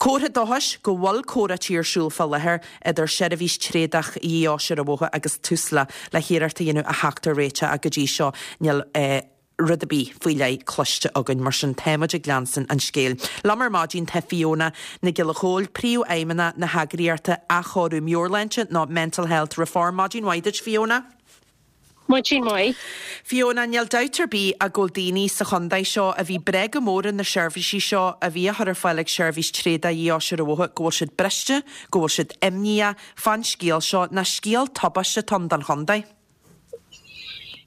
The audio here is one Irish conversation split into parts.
Comhartha dóchais go bhfuil comhráití ar siúl fá láthair idir Seirbhís Tréadach Ghaoth Dobhair agus Tusla le hiarracht a dhéanamh a theacht ar réiteach ach go dtí seo níl rud ar bith faoi leith cloiste againn, mar sin táimid ag leanstan an scéil. Liom ar maidin tá Fiona Nic Giolla Chóill, Príomhfheidhmeannach na heagraíochta Athchóiriú Meabhairshláinte nó Mental Health Reform. Maidin mhaith duit Fiona. Maidin mhaith. Fiona, níl dabht ar bith ach go bhfuil daoine sa chontae seo a bhí breá go mór ar na seirbhísí seo a bhí á chur ar fáil ag Seirbhís Tréadach Ghaoth Dobhair, go bhfuil siad briste, go bhfuil siad imníoch fán scéal seo, ná scéal tubaiste atá ann don chontae.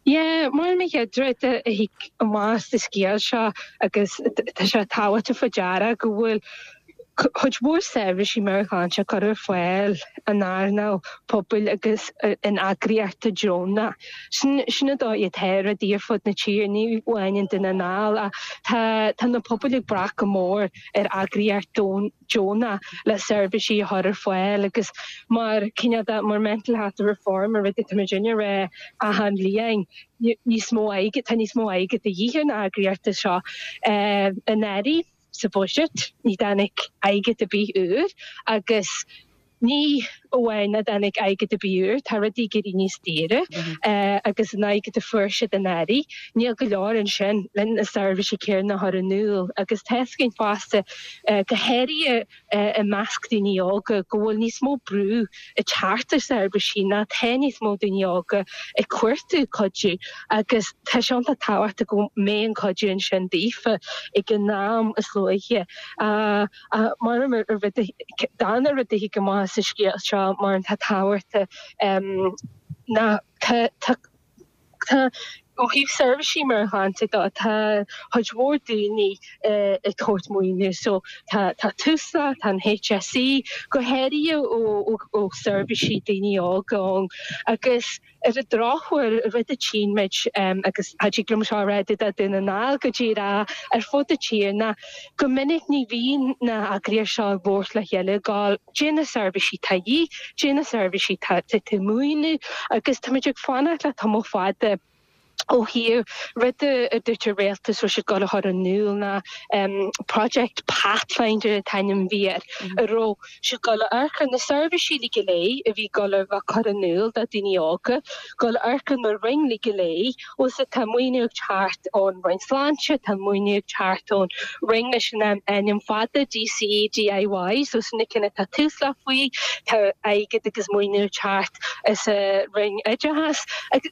Yeah, mar an chéad rud a thig amach as an scéal seo agus tá sé tábhachtach faoi deara go bhfuil cuid mhór seirbhísí meabhairshláinte curtha ar fáil in earnáil pobail agus in eagraíochtaí deonacha. Sin sin an dóigh atá rudaí ar fud na tíre, ní amháin i nDún na nGall ach tá tá na pobail ag brath go mór ar eagraíocht deonach le seirbhísí a chur ar fáil agus mar cineál de mar Mental Health Reform an rud atá muid ag rá achan bhliain níos mó airgid tá níos mó airgid de dhíth ar na heagraíochtaí seo anuraidh sa bhuiséad ní dtáinig airgead ar bith úr agus ní amháin nach dtáinig airgead ar bith úr, tá rudaí ag éirí níos daoire agus an airgead a fuair siad anuraidh, níl go leor ansin le na seirbhísí céanna a chur in iúl agus tá fhios againn fosta, go háirithe i measc daoine óga, go bhfuil níos mó brú ag teacht ar seirbhísí ná tá níos mó daoine óga ag cuartú cuidiú agus tá sé iontach tábhachtach go mbeidh an cuidiú ansin daofa ag an am is luaithe. Mar an rud, darna rud a thig amach as an scéal seo mar atá tábhachtach ná tá tá tá ó thaobh seirbhísí meabhairshláinte de tá cuid mhór daoine ag tabhairt maoiniú so tá tá Tusla, tá an HSE, go háirithe ó ó seirbhísí daoine óga ann agus Ar an drochuair, rud a tchíonn muid, agus cha dtig liom seo a rá do Dhún na nGall go díreach, ar fud na tíre, ná go minic ní bhíonn na heagraíochtaí seo ag labhairt le chéile, ag gabháil, caidé na seirbhísí atá de dhíth, caidé na seirbhísí atá tú ag maoiniú, agus táimid ag fanacht le tamall fada ó thaobh rud a dúirt an rialtas raibh siad ag gabháil a chur in iúl ná Project Pathfinder an t-ainm a bhí air, a raibh siad ag gabháil a amharc ar na seirbhísí uilig go léir a bhí ag gabháil a bheith curtha in iúl do daoine óga, gabháil a amharc ar na roinn uilig go léir, bhfuil 's agat tá maoiniú ag teacht ón Roinn Sláinte, tá maoiniú ag teacht ón Roinn leis an ainm fada DCEDIY, so sin na cinn atá Tusla faoi, tá airgead agus maoiniú ag teacht as an Roinn Oideachais.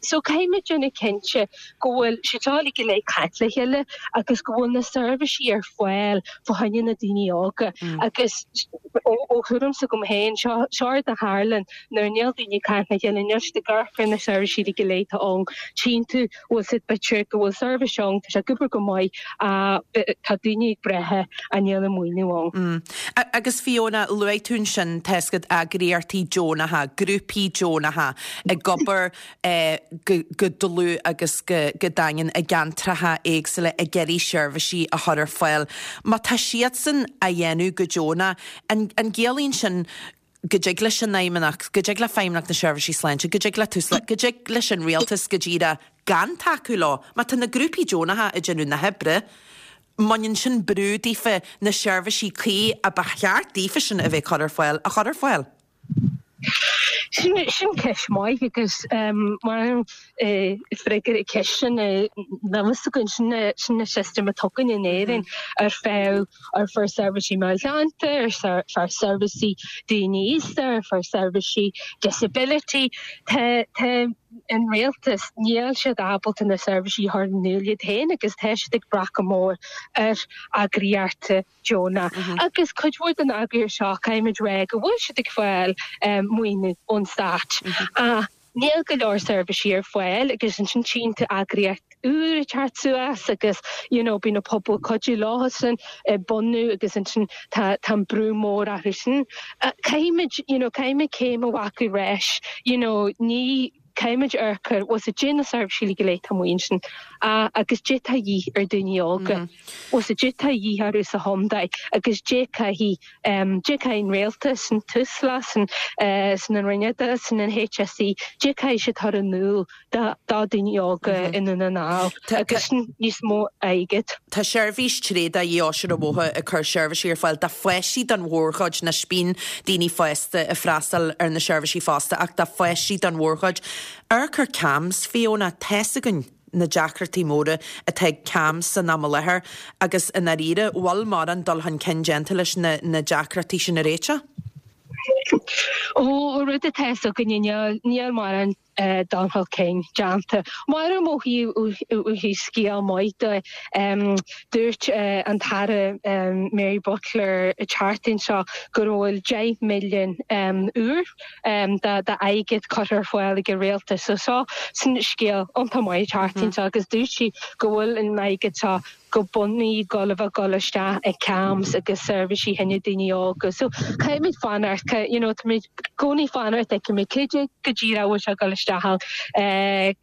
So caithfidh muid déanamh cinnte go bhfuil siad seo uilig go léir ag caint le chéile agus go bhfuil na seirbhísí ar fáil fá choinne na daoine óga agus ó thuairim s'agam féin, seo seo rud a tharlann nuair níl daoine ag caint le chéile, níl siad ag amharc ar na seirbhísí uilig go léir atá ann, tchíonn tú bhfuil 's agat b'fhéidir go bhfuil seirbhís ann, tá sé ag obair go maith ach tá daoine ag brath ach níl an maoiniú ann. Agus Fiona, luaigh tú ansin, tá 's agat eagraíochtaí deonacha, grúpaí deonacha ag obair go dlúth agus go daingean i gceantracha éagsúla ag iarraidh seirbhísí a chur ar fáil. Má tá siadsan á dhéanamh go deonach, an gciallaíonn sin go dtig leis an Fheidhmeannacht, go dtig le Feidhmeannacht na Seirbhísí Sláinte, go dtig le Tusla, go dtig leis an Rialtas go díreach gan tacú leo? Má tá na grúpaí deonacha ag déanamh na hoibre, mbaineann sin brú daofa na seirbhísí cuí a ba cheart daofa sin a bheith ag cur ar fáil a chur ar fáil? Sin ceist mhaith agus mar freagra ar an cheist sin níl fhios againn, sin sin an system atá againn in Éirinn ar feadh ar feadh seirbhísí meabhairshláinte, ar feadh seirbhísí daoine aosta, ar feadh seirbhísí disability. Tá tá an rialtas, níl siad ábalta na seirbhísí a chur in iúl iad féin agus tá siad ag brath go mór ar eagraíochtaí deonach. Agus cuid mhór den eagraíocht seo, caithfimid rá go bhfuil siad ag fáil maoiniú ón stát. Ach níl go leor seirbhísí ar fáil agus ansin tchíonn tú eagraíocht úr ag teacht suas agus you know bíonn an pobal ag cuidiú leosan ag bunú agus ansin tá tá an brú mór orthu sin. Caithfimid you know caithfimid céim a ghlacadh ar ais you know ní. Caithfimid amharc ar, bhfuil 's a'd, dé na seirbhísí go léir atá amuigh ansin agus dé tá a dhíth ar daoine óga, bhfuil 's a'd, dé tá a dhíth orthu sa chontae agus dé caithfidh, dé caithfidh an rialtas, an Tusla, san, san an Roinn Oideachais, san an HSE, dé caithfidh siad chur in iúl do daoine óga i nDún na nGall agus níos mó airgid. Tá seirbhís tréada Dhíóise an Bhóthair ag cur seirbhísí ar fáil do pháistí don mhórchuid, anois bíonn daoine fásta ag freastal ar na seirbhísí fosta ach do pháistí don mhórchuid. Amharc ar CAMHS, Fiona, tá's againn na deacrachtaí móra atá ag CAMHS san am i láthair agus i ndáiríre, bhfuil mórán dul chun cinn déanta leis na deacrachtaí sin a réiteach? Ó, rud atá fhios againne, níl mórán dul chun cinn déanta. Maram ó thaobh scéal maith de, dúirt an tAire Mary Butler an tseachtain seo go bhfuil 10 milliún úr d'airgead curtha ar fáil ag an rialtas. So seo sin scéal iontach maith an tseachtain seo agus dúirt sí go bhfuil an airgead seo go bunúsach ag gabháil a bheith ag dul isteach i CAMHS agus seirbhísí fá choinne daoine óga. So caithfimid fanacht, you know, táimid i gcónaí fanacht fheicfimid cé dé go díreach a bhfuil sé ag dul isteach ann,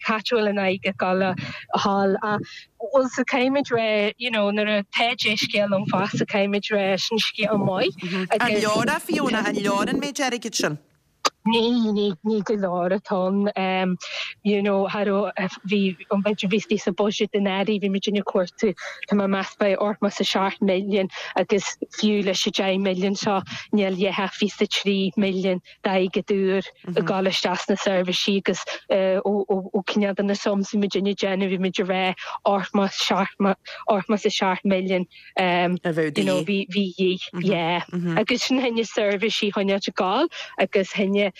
cá háit a bhfuil an airgead ag dul a dhul ach bhuel so caithfimid rá, you know, nuair atá dea-scéal ann fosta caithfimid rá sin scéal maith An agus leor é Fiona, an leor an méid airgid sin? Ní, ní, ní go leor atá ann. You know, cha raibh, bhí, an b'fhéidir bhí istigh sa budget anuraidh, bhí muid ag cuartú, tá mé ag meas b'fhéidir 87 milliún agus fiú leis an 10 milliún seo níl a dhath ach 23 milliún d'airgead úr ag dul isteach sna seirbhísí agus ó, ó, ó cineál de na sums bhí muid ag déanamh, bhí muid ag rá 87 milliún. A bheadh you know, bhí bhí dhíth, yeah. Agus sin fá choinne seirbhísí a choinneáilt ag gabháil agus fá choinne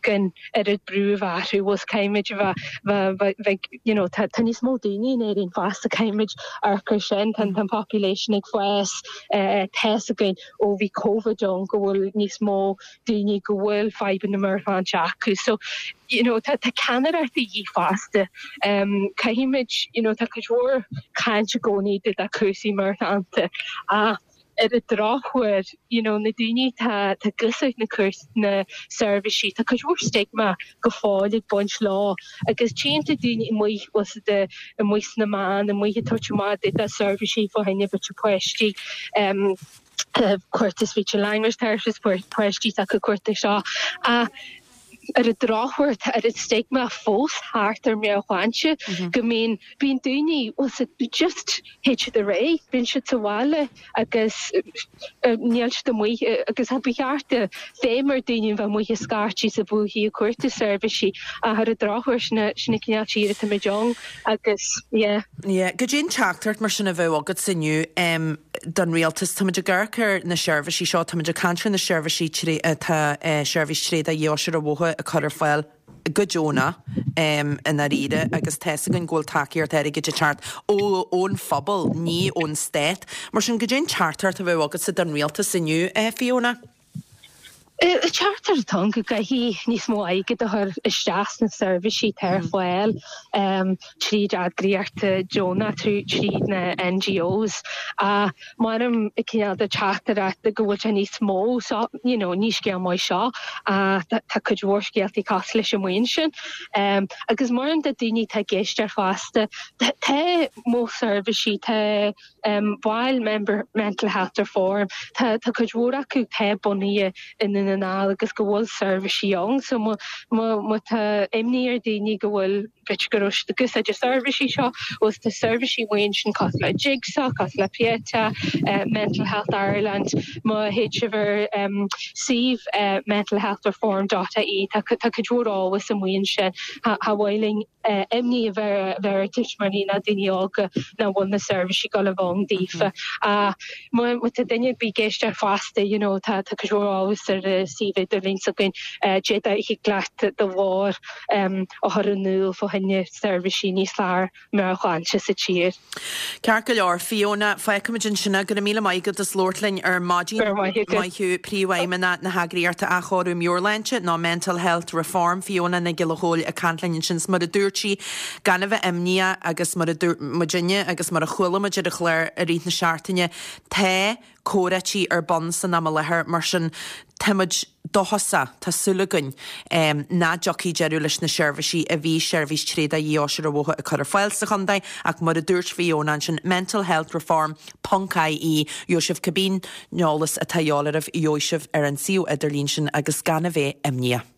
gan oiread brú a bheith orthu, bhfuil caithfimid a bheith bheith bheith you know, tá tá níos mó daoine in Éirinn fosta, caithfimid amharc ar sin, tá an population ag fás, tá fhios againn ó bhí Covid ann go bhfuil níos mó daoine go bhfuil fadhbanna meabhairshláinte acu. So, you know, tá, tá ceannaireacht de dhíth fosta. Um, caithfimid, you know, tá cuid mhór caint i gcónaí de de cúrsaí meabhairshláinte ach ar an drochuair, you know, na daoine tá tá ag úsáid na cúrs na seirbhísí, tá cuid mhór stigma go fóill ag baint leo agus tchíonn tú daoine amuigh bhfuil 's a'd amuigh sna meáin, amuigh ag tabhairt amach de de seirbhísí fá choinne b'fhéidir páistí. Um, cuartú speech and language therapist, páistí atá ag cuartú seo. Ach ar an drochuair tá an stigma fós thart ar meabhairshláinte go mbíonn, bíonn daoine, bhfuil 's a'd, just théid siad ar aghaidh, bíonn siad sa bhaile agus níl siad amuigh agus ba cheart feidhm ar daoine a bheith amuigh ag scairtigh is ag buachaidh ag cuartú seirbhísí ach ar an drochuair sin an cineál tír atáimid ann agus yeah. Yeah. Goidé an teachtaireacht mar sin a bheadh agatsa inniu don rialtas? Táimid ag amharc ar na seirbhísí seo, táimid ag caint ar na seirbhísí atá Seirbhís Tréada Dheoise an Bhóthair ag cur ar fáil go deonach i ndáiríre agus tá's againn go bhfuil tacaíocht airgid ag teacht ó ón phobal, ní ón stát. Mar sin, goidé an teachtaireacht a bheadh agatsa don rialtas inniu, Fiona? Teachtaireacht atá ann go gcaithfidh níos mó airgid a chur isteach sna seirbhísí atá ar fáil tríd eagraíochtaí deonach, tríd na NGOs. Ach mairim cineál de teachtaireacht go bhfuil sé níos mó so, you know, ní scéal maith seo ach tá cuid mhór scéaltaí cosúil leis amuigh ansin. Agus mairim do daoine atá ag éisteacht fosta, tá mo seirbhísí, tá baill member Mental Health Reform, tá tá cuid mhór acu atá bunaithe i nDún na nGall agus go bhfuil seirbhísí ann so má má má tá imní ar daoine go bhfuil b'fhéidir go raibh siad ag úsáid na seirbhísí seo bhuel tá seirbhísí amuigh ansin cosúil le Jigsaw, cosúil le Pieta, Mental Health Ireland, má théid sibh ar suíomh mentalhealthreform dot ie tá tá cuid mhór eolas amuigh ansin cha cha mhaith linn imní a bheith ar tuismitheoirí ná daoine óga nach bhfuil na seirbhísí ag dul a bheith ann daofa. Ach má tá duine ar bith ag éisteacht fosta, you know, tá cuid mhór eolas ar an suíomh idirlín s'againn, d'fhéadfadh thig leat do ghlór a chur in iúl fá choinne seirbhísí níos fearr meabhairshláinte sa tír. Ceart go leor, Fiona, fágfaimid ansin é. Go raibh míle maith agat as labhairt linn ar maidin. Go raibh maith agat. Maith thú, Príomhfheidhmeannach na heagraíochta Athchóiriú Meabhairshláinte, nó Mental Health Reform, Fiona Nic Giolla Chóill ag caint linn ansin. 'S mar a dúirt sí, gan a bheith imníoch agus mar a dúirt muidinne agus mar a chuala muid ar an chlár i rith na seachtaine, tá comhráití ar bun san am i láthair, mar sin táimid. dóchasach, tá súil againn nach dtiocfaidh deireadh leis na seirbhísí a bhí Seirbhís Tréadach Dhífhostaithe ar Bhóthar ag cur ar fáil sa chontae ach mar a dúirt Fiona ansin, Mental Health Reform ponc ie, gheobhaidh sibh cibé eolas atá a dhíobháil oraibh, gheobhaidh sibh ar an suíomh idirlín sin agus gan a bheith imníoch.